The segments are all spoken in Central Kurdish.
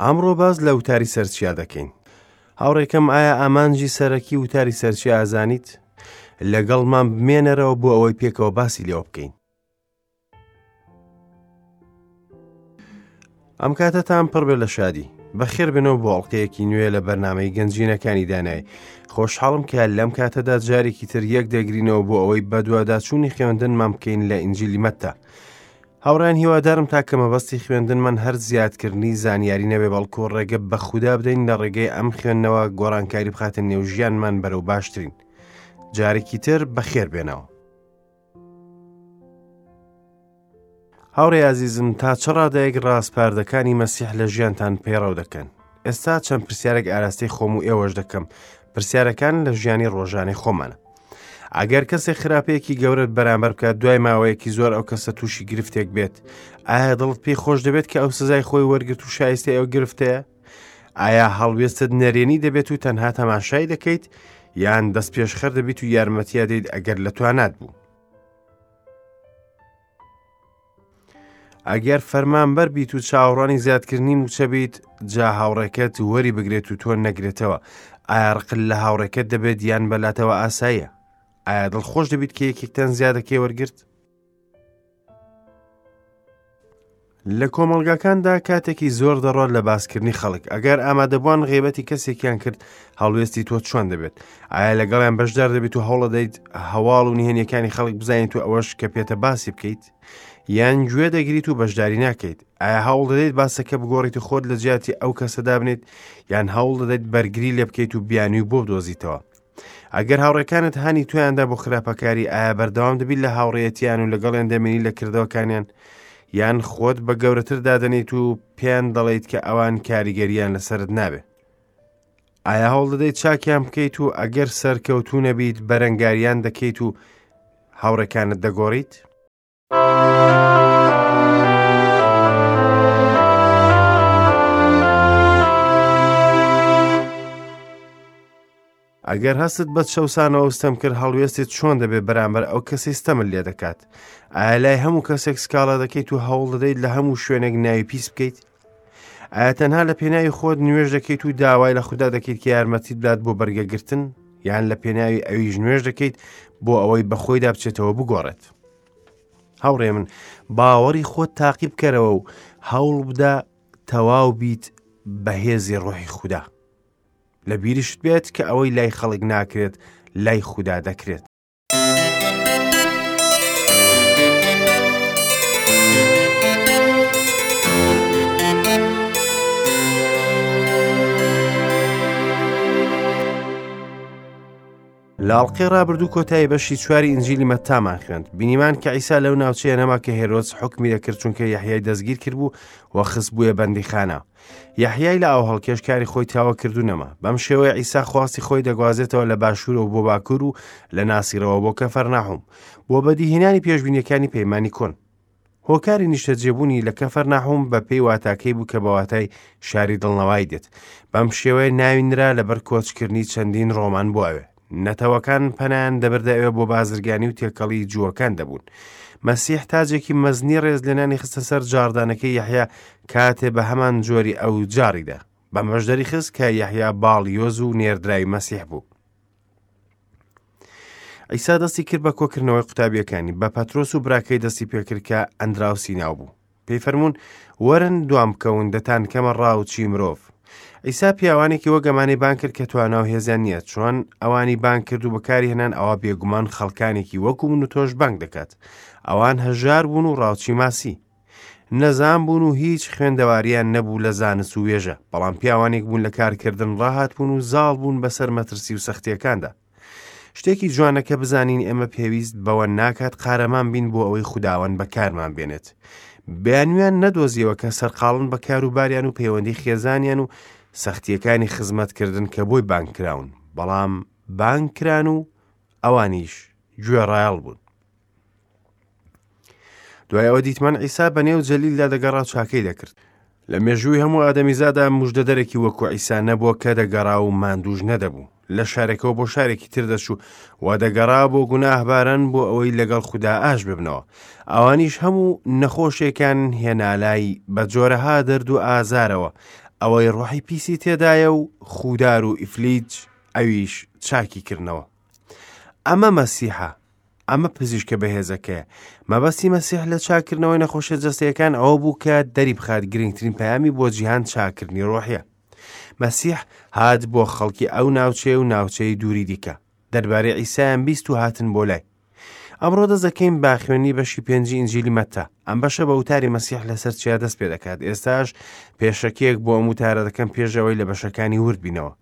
ئەمڕۆ باس لە وتاری سەرچیا دەکەین. هاوڕێکەم ئایا ئامانجی سەرەکی وتاری سەرچیا ئەزانیت؟ لەگەڵمان بمێنەرەوە بۆ ئەوەی پێکەوە باسی لێوە بکەین. ئەم کاتەتان پڕ بێ لە شادی. بەخێر بێنەوە بۆ ئەڵلقەیەکی نوێ لە بەرنمەی گەنجینەکانی دانای. خۆشحاڵم کە لەم کاتەدا جارێکی تر یەک دەگرینەوە بۆ ئەوەی بەدواداچوونی خوێندنمان بکەین لە ئینجیلی مەتتا. هاوڕێیان هیوادارم تاکە مەبەستی خوێندنمان هەر زیادکردنی زانیاری نەبێ بەڵکو ڕێگە بە خودا بدەین لە ڕێگەی ئەم خوێندنەوە گۆڕانکاری بخاتە نێو ژیانمان بەرەو باشترین. جارێکی تر بەخێر بێنەوە. هاوڕێ ئازیزم تا چ ڕادەیەک ڕاسپاردەکانی مەسیح لە ژیانتان پەیڕەو دەکەن؟ ئێستا چەند پرسیارێک ئاراستەی خۆم و ئێوەش دەکەم پرسیارەکان لە ژیانی ڕۆژانەی خۆمانە. ئەگەر کەسێک خراپەیەکی گەورەت بەرامبەر بکات دوای ماوەیەکی زۆر ئەو کەسە تووشی گرفتێک بێت ئایا دڵت پێی خۆش دەبێت کە ئەو سزای خۆی وەرگرت و شایستەی ئەو گرفتەیە ئایا هەڵوێستت نەرێنی دەبێت و تەنها تەماشای دەکەیت یان دەست پێشخەر دەبیت و یارمەتیا دەیت ئەگەر لە توانات بوو ئەگەر فەرمانبەر بیت و چاوەڕوانی زیادکردنی مووچە بیت جا هاوڕێکەت وەری بگرێت و تۆ نەگرێتەوە ئایا ڕقت لە هاوڕێکەت دەبێت یان بەلاتەوە ئاساییە ئایا دڵخۆش دەبیت کە یەکێکتان زیادەکەی وەرگرت لە کۆمەڵگاکاندا کاتێکی زۆر دەڕوات لە باسکردنی خەڵک ئەگەر ئامادەبووان غیبەتی کەسێکیان کرد هەڵوێستی تۆ چۆن دەبێت ئایا لەگەڵیان بەشدار دەبیت و هەوڵەدەیت هەواڵ و نهێنیەکانی خەڵک بزانیت و ئەوەش کە پێتە باسی بکەیت یان گوێ دەگریت و بەشداری ناکەیت ئایا هەوڵ دەدەیت باسەکە بگۆڕیت و خۆت لە جیاتی ئەو کەسە دابنێت یان هەوڵ دەدەیت بەرگری لێ بکەیت و بیانوی بۆ بدۆزیتەوە ئەگەر هاوڕێکانت هانی تۆیاندا بۆ خراپەکاری ئایا بەردەوام دەبیت لە هاوڕێیەتیان و لەگەڵیان دەمێنی لە کردەوەکانیان یان خۆت بە گەورەتر دادەنیت و پێیان دەڵێیت کە ئەوان کاریگەریان لەسەرت نابێ ئایا هەوڵ دەدەیت چاکیان بکەیت و ئەگەر سەرکەوتوو نەبیت بەرەنگاریان دەکەیت و هاوڕێکانت دەگۆڕیت؟ ئەگەر هەستت بە چەوسانەوە و ستەم کرد هەڵوێستت چۆن دەبێت بەرامبەر ئەو کەسەی ستەمت لێ دەکات؟ ئایا لای هەموو کەسێک سکاڵا دەکەیت و هەوڵ دەدەیت لە هەموو شوێنێک ناوی پیس بکەیت؟ ئایا تەنها لە پێناوی خۆت نوێژ دەکەیت و داوای لە خودا دەکەیت کە یارمەتیت بدات بۆ بەرگەگرتن یان لە پێناوی ئەویش نوێژ دەکەیت بۆ ئەوەی بەخۆیدا بچێتەوە بگۆڕێت هاوڕێ من باوەڕی خۆت تاقی بکەرەوە و هەوڵ بدە تەواو بیت بەهێزی ڕۆحی خودا لە بیریشت بێت کە ئەوەی لای خەڵک ناکرێت لای خودا دەکرێت. لە ئەڵقەی ڕابردوو کۆتایی بەشی چواری ئینجیلی مەتامان خوێند بینیمان کە عیسا لەو ناوچەیە نەما کە هێرۆدس حوکمی دەکرد چونکە یەحیای دەستگیر کردبوو و خستبوویە بەندیخانە یەحیای لە ئاوهەڵکێش کاری خۆی تاوە کرد و نەما بەم شێوەیە عیسا خواستی خۆی دەگوازێتەوە لە باشوورەوە بۆ باکوور و لە ناسیرەوە بۆ کەفەرناحوم بۆ بەدیهێنانی پێشبینیەکانی پەیمانی کۆن هۆکاری نیشتەجێبوونی لە کەفەرناحوم بە پێی واتاکەی بوو کە بە واتای شاری دڵنەوای دێت بەم شێوەیە ناوی نرا لەبەر کۆچکردنی چەندین ڕۆمان بۆ ئەوێ نەتەوەکان پەنایان دەبردە ئەوێ بۆ بازرگانی و تێکەڵی جووەکان دەبوون. مەسیح تاجێکی مەزنی ڕێزلێنانی خستە سەر جاڕدانەکەی یەحیا کاتێ بە هەمان جۆری ئەو جاڕیدا. بەمەش دەریخست کە یەحیا باڵیۆز و نێردراوی مەسیح بوو. عیسا دەستی کرد بە کۆکردنەوەی قوتابیەکانی، بە پەترۆس و براکەی دەستی پێکرد کە ئەندراوسی ناو بوو. پێی فەرموون، وەرن دوام بکەون، دەتانکەمە ڕاوچی مرۆڤ. عیسا پیاوانێکی وەک ئەمانەی بانگ کرد کە توانا و هێزیان نییە، چۆن ئەوانی بانگ کرد و بەکاری هێنان ئەوا بێگومان خەڵکانێکی وەکو من و تۆش بانگ دەکات. ئەوان هەژار بوون و ڕاوچی ماسی. نەزان بوون و هیچ خوێندەواریان نەبوو لە زانست و وێژە، بەڵام پیاوانێک بوون لە کارکردن ڕاهاتبوون و زاڵ بوون بەسەر مەترسی و سەختییەکاندا. شتێکی جوانە کە بزانین ئێمە پێویست بەوە ناکات قارەمان بین بۆ ئەوەی خوداوەند بەکارمان بێنێت. بیانویان نەدۆزیەوە کە سەرقاڵن بە کاروباریان و پەیوەندی خێزانیان و سەختیەکانی خزمەتکردن کە بۆی بانگ کراون، بەڵام بانگ کران و ئەوانیش گوێڕایەڵ بوون. دوای ئەوە دیتمان عیسا بە نێو جەلیلدا دەگەڕا چاکەی دەکرد. لە مێژووی هەموو ئادەمیزادا مژدەدەرێکی وەکو عیسا نەبووە کە دەگەڕا و ماندووش نەدەبوو. لە شارێکەوە بۆ شارێکی تر دەچوو و دەگەڕا بۆ گوناهباران بۆ ئەوەی لەگەڵ خودا ئاش ببنەوە. ئەوانیش هەموو نەخۆشێکان هێنالای بە جۆرەها دەرد و ئازارەوە. ئەوەی ڕۆحی پیسی تێدایە و خوودار و ئیفلیج، ئەویش چاکی کردنەوە. ئەمە مەسیحە، ئەمە پزیشکە بەهێزەکەیە. مەبەستی مەسیح لە چاککردنەوەی نەخۆشیە جەستەیەکان ئەوە بوو کە دەریبخات گرنگترین پەیامی بۆ جیهان چاککردنی ڕۆحیە. مەسیح هات بۆ خەڵکی ئەو ناوچەیە و ناوچەی دووری دیکە. دەربارەی عیسایان بیست و هاتن بۆ لای. ئەمڕۆ دەست دەکەین بە خوێندنی بەشی پێنجی ئینجیلی مەتا. ئەم بەشە بە وتاری مەسیح لەسەر چیا دەست پێ دەکات. ئێستاش پێشەکیەک بۆ ئەم وتارە دەکەم پێش ئەوەی لە بەشەکانی ورد بینەوە.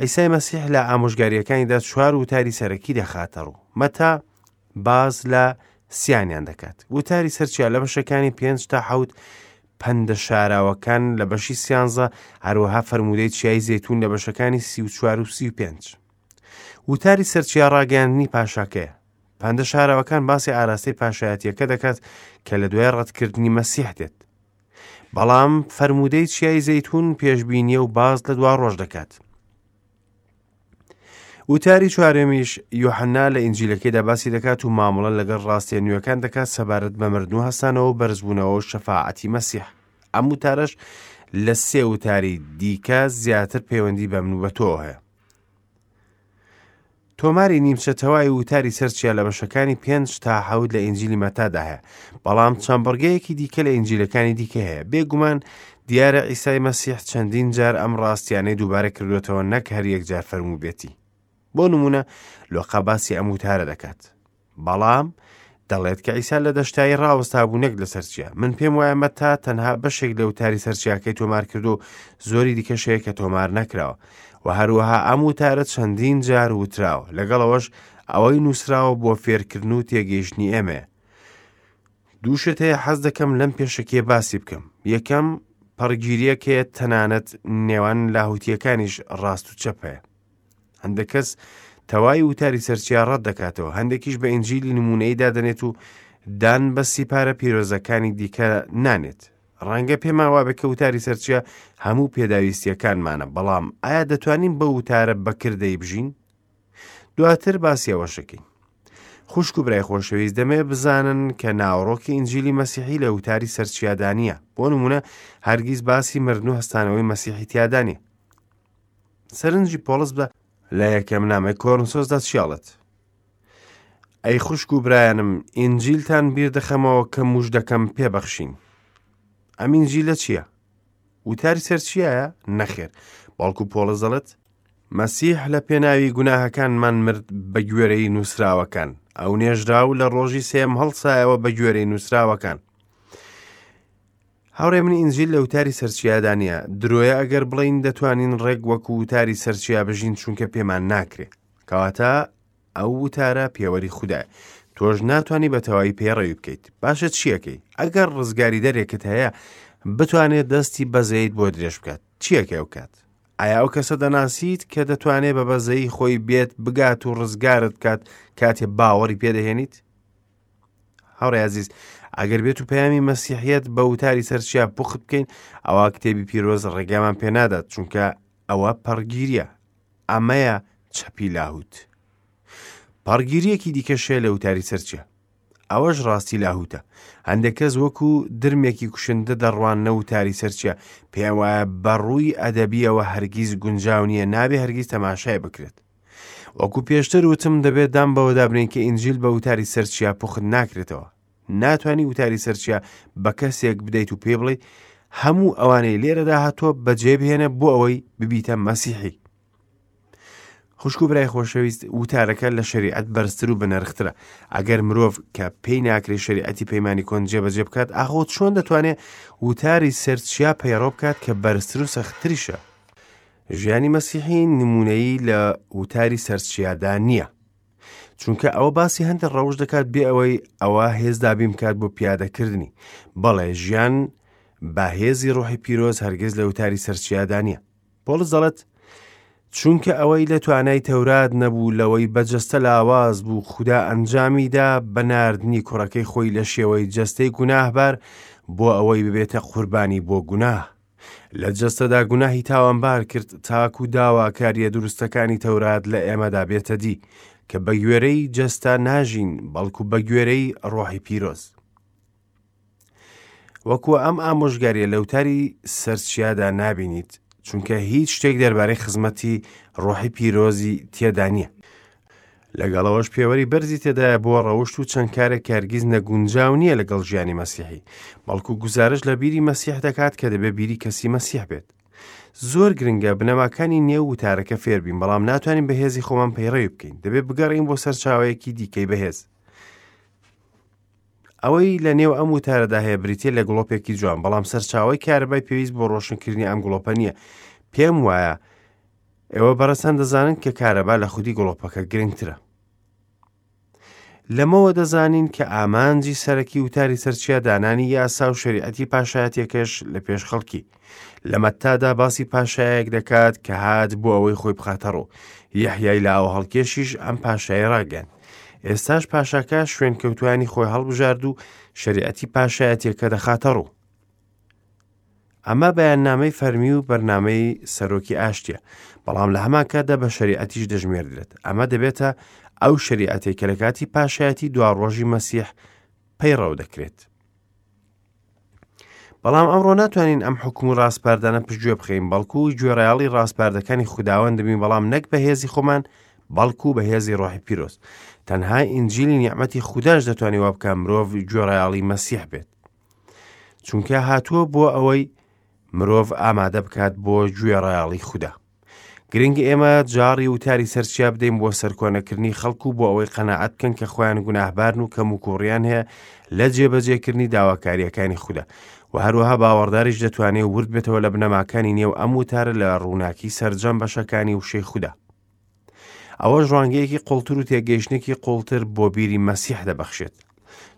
عیسای مەسیح لە ئامۆژگارییەکانیدا چوار وتاری سەرەکی دەخاتە ڕوو. مەتا باس لە سیانیان دەکات. وتاری سەر چیا لە بەشەکانی پێنج تا حەوت پەندە شاراوەکان لە بەشی سیانزە، هەروەها فەرموودەی چیای زەیتوون لە بەشەکانی 34 و 35. وتاری سەرچیا ڕاگەیاندنی پاشاکەیە. پەندە شاراوەکان باسی ئاراستەی پاشایەتیەکە دەکات کە لە دوای ڕەتکردنی مەسیح دێت. بەڵام فەرموودەی چیای زەیتون پێشبینیە و باز لە دوا ڕۆژ دەکات. وتاری چوارەمیش یۆحەنا لە ئینجیلەکەیدا باسی دەکات و مامەڵە لەگەڵ ڕاستیە نوێەکان دەکات سەبارەت بە مردن و هەستانەوە و بەرزبوونەوە و شەفاعەتی مەسیح. ئەم وتارەش لە سێ وتاری دیکە زیاتر پەیوەندی بە من و بە تۆوە هەیە. تۆماری نیمچە تەواوی وتاری سەر چیا لە بەشەکانی پێنج تا حەوت لە ئینجیلی مەتادا هەیە، بەڵام چەند بڕگەیەکی دیکە لە ئینجیلەکانی دیکە هەیە. بێگومان دیارە عیسای مەسیح چەندین جار ئەم ڕاستیانەی دووبارە کردوێتەوە نەک هەر یەک جار فەرمووبێتی. بۆ نمونە لۆقا باسی ئەم وتارە دەکات. بەڵام دەڵێت کە عیسا لە دەشتایی ڕاوەستا بوو نەک لەسەر چیا. من پێم وایە مەتا تەنها بەشێک لە وتاری سەر چیاکەی تۆمار کردو و زۆری دیکەش هەیە کە تۆمار نەکراوە. و هەروەها ئەم وتارە چەندین جار وتراوە. لەگەڵ ئەوەش ئەوەی نووسراوە بۆ فێرکردن و تێگەیشتنی ئێمەیە. دوو شت هەیە حەز دەکەم لەم پێشەکیە باسی بکەم. یەکەم، پەڕگیرییەک هەیە تەنانەت نێوان لاهوتییەکانیش ڕاست و چەپ هەیە. هەندێک کەس تەوای وتاری سەرچیا ڕەت دەکاتەوە، هەندێکیش بە ئینجیلی نمونەی دادەنێت و دان بە سیپارە پیرۆزەکانی دیکە نانێت. ڕەنگە پێمان وابێ کە وتاری سەرچیا هەموو پێداویستیەکانمانە، بەڵام ئایا دەتوانین بەو وتارە بەکردەی بژین؟ دواتر باسی ئەوەش دەکەین. خوشک و برای خۆشەویست دەمێ بزانن کە ناوەڕۆکی ئینجیلی مەسیحی لە وتاری سەرچیادا نییە. بۆ نمونە هەرگیز باسی مردن و هەستانەوەی مەسیحی تیادا نییە. سەرنجی پۆڵس بە لە یەکەم نامەی کۆرنسۆسدا چیاڵێت ئەی خوشک و برایانم ئینجیلتان بیر دەخەمەوە کە موژدەکەم پێبەخشین ئەم ئینجیلە چییە؟ وتاری سەر چیایە؟ نەخێر بەڵکو پۆڵس دەڵێت مەسیح لە پێناوی گوناهەکانمان مرد بە گوێرەی نووسراوەکان ئەو نێژرا و لە ڕۆژی سێم هەڵسایەوە بە گوێرەی نووسراوەکان هاوڕێ من ئینجیل لە وتاری سەرچیادا نییە درۆیە ئەگەر بڵین دەتوانین ڕێک وەکو وتاری سەرچیا بژین چونکە پێمان ناکرێ کەواتە ئەو وتارە پێوەری خودایە تۆش ناتوانانی بە تەواوی پەیڕەوی بکەیت باشە چیەکەی ئەگەر ڕزگاری دەرێکت هەیە بتوانێت دەستی بەزەیت بۆ درێژ بکات چیەکە ئەو کات ئایا ئەو کەسە دەناسیت کە دەتوانێت بە بەزەیی خۆی بێت بگات و ڕزگارت بکات کاتێ باوەڕی پێدەهێنیت هاوڕێ عزیز ئەگەر بێت و پەیامی مەسیحیت بە وتاری سەرچیا پوخت بکەین ئەوە کتێبی پیرۆز ڕێگامان پێنادات چونکە ئەوە پەڕگیریە ئەمەیە چەپی لاهوت پەڕگیریەکی دیکەش هەیە لە وتاری سەرچیا ئەوەش ڕاستی لاهوتە هەندێک کەس وەکو درمێکی کوشندە دەڕواننە وتاری سەرچیا پێیان وایە بەڕووی ئەدەبیەوە هەرگیز گونجاو نییە نابێ هەرگیز تەماشای بکرێت وەکو پێشتر وتم دەبێت دام بەوەدا بنێین کە ئینجیل بە وتاری سەرچیا پوخت ناکرێتەوە ناتوانی وتاری سەرچیا بە کەسێک بدەیت و پێی بڵێ هەموو ئەوانەی لێرەدا هاتووە بەجێ بهێنە بۆ ئەوەی ببیتە مەسیحی خوشک و برای خۆشەویست وتارەکە لە شریعەت بەرزتر و بەنرخترە ئەگەر مرۆڤ کە پێی ناکرێ شریعەتی پەیمانی کۆن جێبەجێ بکات ئاخۆ چۆن دەتوانێت وتاری سەرچیا پەیڕۆ بکات کە بەرزتر و سەختتریشە ژیانی مەسیحی نمونەیی لە وتاری سەرچیادا نییە چونکە ئەوە باسی هەندێک ڕەوش دەکات بێ ئەوەی ئەوە هێز دابین بکات بۆ پیادەکردنی بەڵێ ژیان بە هێزی ڕۆحی پیرۆز هەرگیز لە وتاری سەرچیادا نییە پۆڵس دەڵێت چونکە ئەوەی لە توانای تەورات نەبوو لەوەی بە جەستە لاواز بوو خودا ئەنجامیدا بە ناردنی کوڕەکەی خۆی لە شێوەی جەستەی گوناهبار بۆ ئەوەی ببێتە قوربانی بۆ گوناه لە جەستەدا گوناهی تاوانبار کرد تاکو داواکاریە دروستەکانی تەورات لە ئێمەدا بێتە دی کە بە گوێرەی جەستە ناژین بەڵکو بە گوێرەی ڕۆحی پیرۆز. وەکو ئەم ئامۆژگاریە لە وتاری سەرچیادا نابینیت. چونکە هیچ شتێک دەربارەی خزمەتی ڕۆحی پیرۆزی تێدا نییە. لەگەڵ ئەوەش پێوەری بەرزی تێدایە بۆ ڕەوشت و چەند کارێک کە هەرگیز نەگونجاو نییە لەگەڵ ژیانی مەسیحی، بەڵکو گوزارش لە بیری مەسیح دەکات کە دەبێ بیری کەسی مەسیح بێت. زۆر گرنگە بنەماکانی نێو وتارەکە فێربین، بەڵام ناتوانین بە هێزی خۆمان پەیڕەوی بکەین. دەبێت بگەڕێین بۆ سەرچاوەیەکی دیکەی بەهێز. ئەوەی لە نێو ئەم وتارەدا هەیە بریتیە لە گڵۆپێکی جوان، بەڵام سەرچاوەی کارەبای پێویست بۆ ڕۆشنکردنی ئەم گڵۆپە نییە. پێم وایە ئێوە بەڕێزتان دەزانن کە کارەبا لە خودی گڵۆپەکە گرنگترە. لەمەوە دەزانین کە ئامانجی سەرەکی وتاری سەرچیا دانانی یاسا و شەریعەتی پاشایەتیەکەش لە پێش خەڵکی. لە مەتادا باسی پاشایەک دەکات کە هات بۆ ئەوەی خۆی بخاتە ڕوو. یەحیای لاوە هەڵکێشیش ئەم پاشای ڕاگەیاند. ئێستاش پاشاکە شوێنکەوتوانی خۆی هەڵبژارد و شەریعەتی پاشایەتیەکە دەخاتە ڕوو. ئەمە بەیاننامەی فەرمی و بەرنامەی سەرۆکی ئاشتیە، بەڵام لە هەمان کاتدا بە شەریعەتیش دەژمێردرێت. ئەمە دەبێتە ئەو شەریعەتەی کە لە کاتی پاشایەتی دواڕۆژی مەسیح پەیڕەو دەکرێت. بەڵام ئەمڕۆ ناتوانین ئەم حکوم و ڕاسپاردانە پشتگوێ بخەین، بەڵکو گوێڕایەڵی ڕاسپاردەکانی خوداوەند دەبین، بەڵام نەک بە هێزی خۆمان، بەڵکو بە هێزی ڕۆحی پیرۆز. تەنها ئینجیلی نیعمەتی خوداش دەتوانێت وا بکات مرۆڤ گوێڕایەڵی مەسیح بێت. چونکە هاتووە بۆ ئەوەی مرۆڤ ئامادە بکات بۆ گوێڕایەڵی خودا. گرنگ ئێمە جاڕی وتاری سەرچیا بدەین بۆ سەرکۆنەکردنی خەڵک و بۆ ئەوەی قەناعەت بکەن کە خۆیان گوناهبارن و کەموکوڕیان هەیە لە جێبەجێکردنی داواکارییەکانی خودا و هەروەها باوەڕداریش دەتوانێت ورد بێتەوە لە بنەماکانی نێو ئەم وتارە لە ڕووناکی سەرجەم بەشەکانی وشەی خودا. ئەوەش ڕوانگەیەکی قوڵتر و تێگەیشتنێکی قوڵتر بۆ بیری مەسیح دەبەخشێت.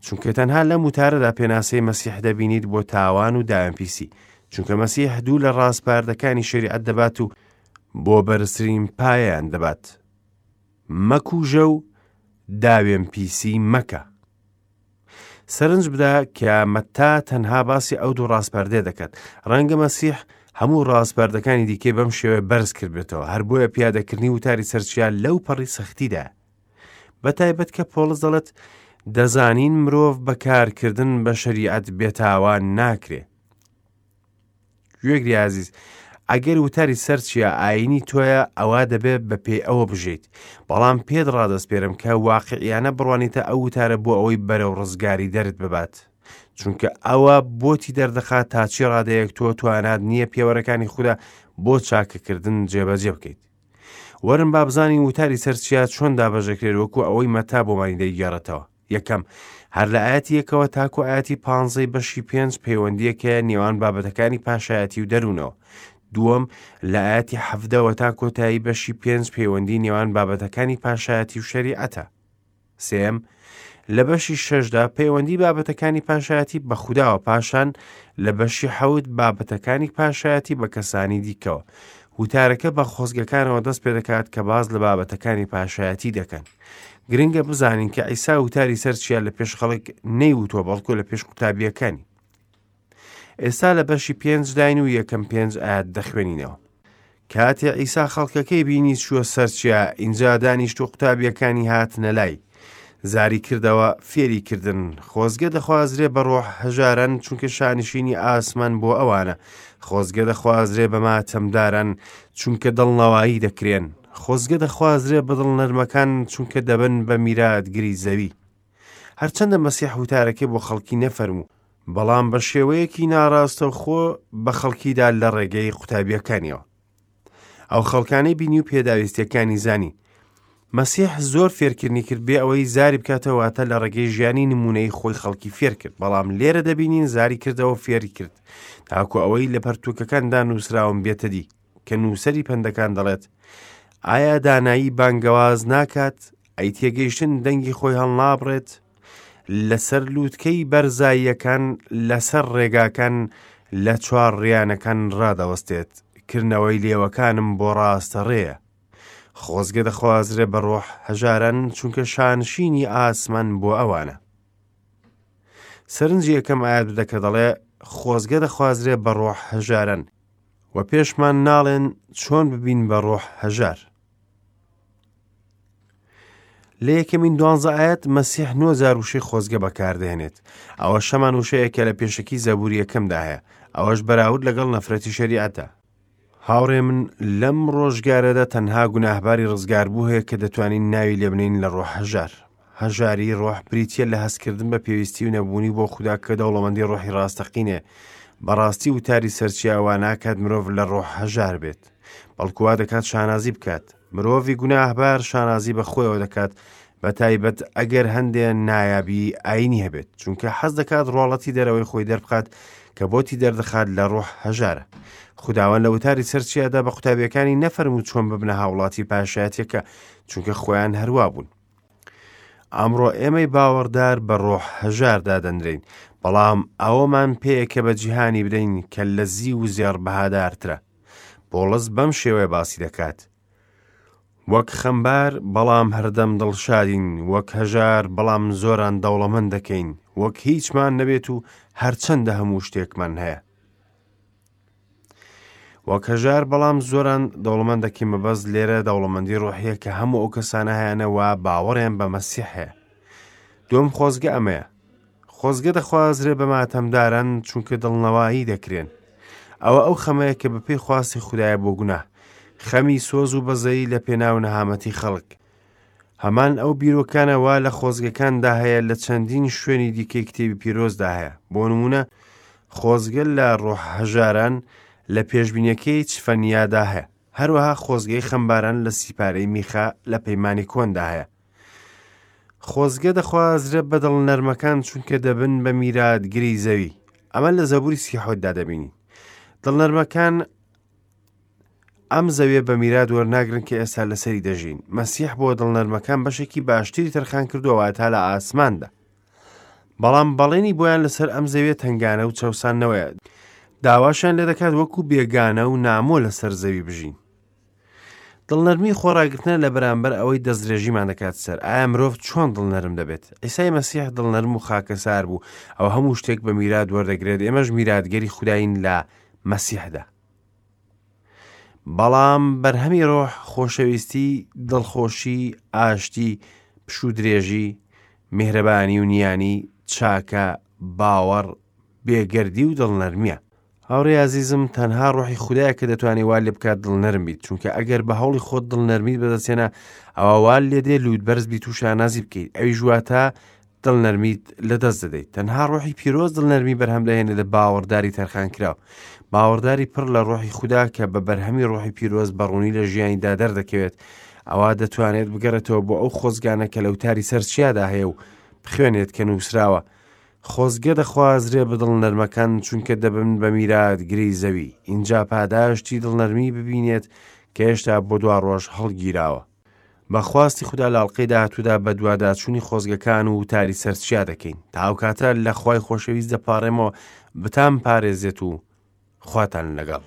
چونکە تەنها لەم وتارەدا پێناسەی مەسیح دەبینیت بۆ تاوان و داوێنپیسی، چونکە مەسیح دوو لە ڕاسپاردەکانی شەریعەت دەبات و بۆ بەرزترین پایەیان دەبات. مەکوژە و داوێنپیسی مەکە. سەرنج بدە کە مەتا تەنها باسی ئەو دوو ڕاسپاردەیە دەکات. ڕەنگە مەسیح هەموو ڕاسپاردەکانی دیکەی بەم شێوەیە بەرز کردبێتەوە، هەر بۆیە پیادەکردنی وتاری سەرچیا لەو پەڕی سەختیدایە. بە تایبەت کە پۆڵس دەڵێت دەزانین مرۆڤ بە کارکردن بە شەریعەت بێتاوان ناکرێ. گوێگری ئازیز، ئەگەر وتاری سەر چیا ئایینی تۆیە ئەوا دەبێ بە پێی ئەوە بژیت، بەڵام پێت ڕادەسپێرم کە واقعیانە بڕوانیتە ئەو وتارە بۆ ئەوەی بەرەو ڕزگاری دەرت ببات. چونکە ئەوە بۆتی دەردەخات تا چی ڕادەیەک تۆ توانات نییە پێوەرەکانی خودا بۆ چاکەکردن جێبەجێ بکەیت. وەرن با بزانین وتاری سەر چیا چۆن دابەشدەکرێت وەکو ئەوەی مەتا بۆمانی دەیگێڕێتەوە. یەکەم، هەر لە ئایەتی یەکەوە تاکو ئایەتی پانزەی بەشی پێنج پەیوەندییەک هەیە نێوان بابەتەکانی پاشایەتی و دەروونەوە. دووەم، لە ئایەتی حەڤدەوە تا کۆتایی بەشی پێنج پەیوەندی نێوان بابەتەکانی پاشایەتی و شەریعەتە. سێیەم، لە بەشی شەشدا پەیوەندی بابەتەکانی پاشایەتی بە خوداوە پاشان لە بەشی حەوت بابەتەکانی پاشایەتی بە کەسانی دیکەوە. وتارەکە بە خۆزگەکانەوە دەست پێدەکات کە باس لە بابەتەکانی پاشایەتی دەکەن. گرنگە بزانین کە عیسا وتاری سەر چیا لە پێش خەڵک نەیوتووە بەڵکو لە پێش قوتابیەکانی. ئێستا لە بەشی پێنج داین و یەکەم پێنج ئاەت دەخوێنینەوە. کاتێ عیسا خەڵکەکەی بینی چووە سەر چیا، ئینجا دانیشت و قوتابیەکانی هاتنە لای. زاری کردەوە فێری کردن، خۆزگە دەخوازرێ بە ڕۆح هەژاران، چونکە شانشینی ئاسمان بۆ ئەوانە. خۆزگە دەخوازرێ بە ماتەمداران، چونکە دڵنەوایی دەکرێن. خۆزگە دەخوازرێ بە دڵنەرمەکان، چونکە دەبن بە میراتگری زەوی. هەرچەندە مەسیح وتارەکەی بۆ خەڵکی نەفەرموو، بەڵام بە شێوەیەکی ناڕاستەوخۆ بە خەڵکیدا لە ڕێگەی قوتابیەکانیەوە. ئەو خەڵکانەی بینی و پێداویستیەکانی زانی. مەسیح زۆر فێرکردنی کرد بێ ئەوەی زاری بکاتەوە واتە لە ڕێگەی ژیانی نمونەی خۆی خەڵکی فێر کرد بەڵام لێرە دەبینین زاری کردەوە فێری کرد تاکو ئەوەی لە پەرتوکەکاندا نووسراوم بێتە دی کە نووسەری پەندەکان دەڵێت ئایا دانایی بانگەواز ناکات ئەی تێگەیشتن دەنگی خۆی هەڵنابڕێت لەسەر لووتکەی بەرزاییەکان لەسەر ڕێگاکان لە چوار ڕیانەکان ڕادەوەستێت کردنەوەی لێوەکانم بۆ ڕاستە ڕێیە خۆزگە دەخوازرێ بە ڕۆح هەژاران چونکە شانشینی ئاسمان بۆ ئەوانە سەرنجی یەکەم ئاەت بدە کە دەڵێ خۆزگە دەخوازرێ بە ڕۆح هەژاران و پێشمان ناڵێن چۆن ببین بە ڕۆح هەژار لە یەکەمین دوانزە ئاەت مەسیح نۆ جار وشەی خۆزگە بەکاردێنێت ئەوە شەمان وشەیە کە لە پێشەکی زەبوری یەکەمدا هەیە ئەوەش بەراورد لەگەڵ نەفرەتی شەریعەتە. هاوڕێ من لەم ڕۆژگارەدا تەنها گوناهباری ڕزگاربوو هەیە کە دەتوانین ناوی لێبنین لە ڕۆح هەژار. هەژاری ڕۆح بریتییە لە هەستکردن بە پێویستی و نەبوونی بۆ خودا کە دەوڵەمەندی ڕۆحی ڕاستەقینەیە. بەڕاستی وتاری سەرچیا وا ناکات مرۆڤ لە ڕۆح هەژار بێت، بەڵکو وا دەکات شانازی بکات. مرۆڤی گوناهبار شانازی بە خۆیەوە دەکات، بە تایبەت ئەگەر هەندێ نایابی ئاینی هەبێت، چونکە حەز دەکات ڕواڵەتی دەرەوەی خۆی دەربخات کە بۆتی دەردەخات لە ڕۆح هەژارە. خوداوەند لە وتاری سەر چیادا بە قوتابیەکانی نەفەرموو چۆن ببنە هاوڵاتی پاشایەتیەکە، چونکە خۆیان هەروا بوون. ئەمڕۆ ئێمەی باوەڕدار بە ڕۆح هەژار دادەنرێین، بەڵام ئەوەمان پێیە کە بە جیهانی بدەین کە لە زیو و زێڕ بەهادارترە. پۆڵس بەم شێوەیە باسی دەکات، وەک خەمبار بەڵام هەردەم دڵشادین، وەک هەژار بەڵام زۆران دەوڵەمەند دەکەین، وەک هیچمان نەبێت و هەرچەندە هەموو شتێکمان هەیە. وەک هەژار بەڵام زۆران دەوڵەمەند دەکەین مەبەست لێرە دەوڵەمەندی ڕۆحیە کە هەموو ئەو کەسانە هەیانە وا باوەڕیان بە مەسیح هەیە. دووەم خۆزگە ئەمەیە. خۆزگە دەخوازرێ بە ماتەمداران چونکە دڵنەوایی دەکرێن. ئەوە ئەو خەمەیە کە بەپێی خواستی خودایە بۆ گوناه. خەمی سۆز و بەزەیی لە پێناو نەهامەتی خەڵک. هەمان ئەو بیرۆکانە وا لە خۆزگەکاندا هەیە لە چەندین شوێنی دیکەی کتێبی پیرۆزدا هەیە. بۆ نموونە خۆزگە لە ڕۆح هەژاران لە پێشبینیەکەی چفەنیادا هەیە. هەروەها خۆزگەی خەمباران لە سیپارەی میخا لە پەیمانی کۆندا هەیە. خۆزگە دەخوازرێ بە دڵنەرمەکان چونکە دەبن بە میراتگری زەوی. ئەمە لە زەبوری سیحۆتدا دەبینین. دڵنەرمەکان ئەم زەویە بە میرات وەرناگرن کە ئێستا لەسەری دەژین. مەسیح بۆ دڵنەرمەکان بەشێکی باشتری تەرخان کردووە واتە لە ئاسماندا. بەڵام بەڵێنی بۆیان لەسەر ئەم زەویە تەنگانە و چەوساندنەوەیە. داواشیان لێ دەکات وەکو بێگانە و نامۆ لەسەر زەوی بژین. دڵنەرمی خۆڕاگرتنە لە بەرامبەر ئەوەی دەستدرێژیمان دەکات سەر. ئایا مرۆڤ چۆن دڵنەرم دەبێت؟ عیسای مەسیح دڵنەرم و خاکەسار بوو، ئەو هەموو شتێک بە میرات وەردەگرێت، ئێمەش میراتگەری خودایین لە مەسیحدا. بەڵام بەرهەمی ڕۆح خۆشەویستی، دڵخۆشی، ئاشتی، پشوودرێژی، میهرەبانی و نیانی، چاکە، باوەڕ، بێگەردی و دڵنەرمییە. هاوڕێی ئازیزم تەنها ڕۆحی خودایە کە دەتوانێت وا لێ بکات دڵنەرم بیت چونکە ئەگەر بە هەوڵی خۆت دڵنەرمیت بەدەستهێنا ئەوا وا لێ دێ لووت بەرز بیت و شانازی بکەیت ئەویش واتە دڵنەرمیت لەدەست دەدەیت تەنها ڕۆحی پیرۆز دڵنەرمی بەرهەم دەهێنێت لە باوەڕداری تەرخانکراو باوەڕداری پڕ لە ڕۆحی خودا کە بە بەرهەمی ڕۆحی پیرۆز بە ڕوونی لە ژیانیدا دەردەکەوێت ئەوا دەتوانێت بگەڕێتەوە بۆ ئەو خۆزگانە کە لە وتاری سەر چیادا هەیە و بخوێنێت کە نووسراوە خۆزگە دەخوازرێ بە دڵنەرمەکان چونکە دەبن بە میراتگری زەوی ئینجا پاداشتی دڵنەرمی ببینێت کە هێشتا بۆ دوا ڕۆژ هەڵگیراوە. بە خواستی خودا لە ئەڵقەی داهاتوودا بەدواداچوونی خۆزگەکان و وتاری سەر چیا دەکەین. تا ئەو کاتە لە خوای خۆشەویست دەپاڕێمەوە بتانپارێزێت و خواتان لەگەڵ.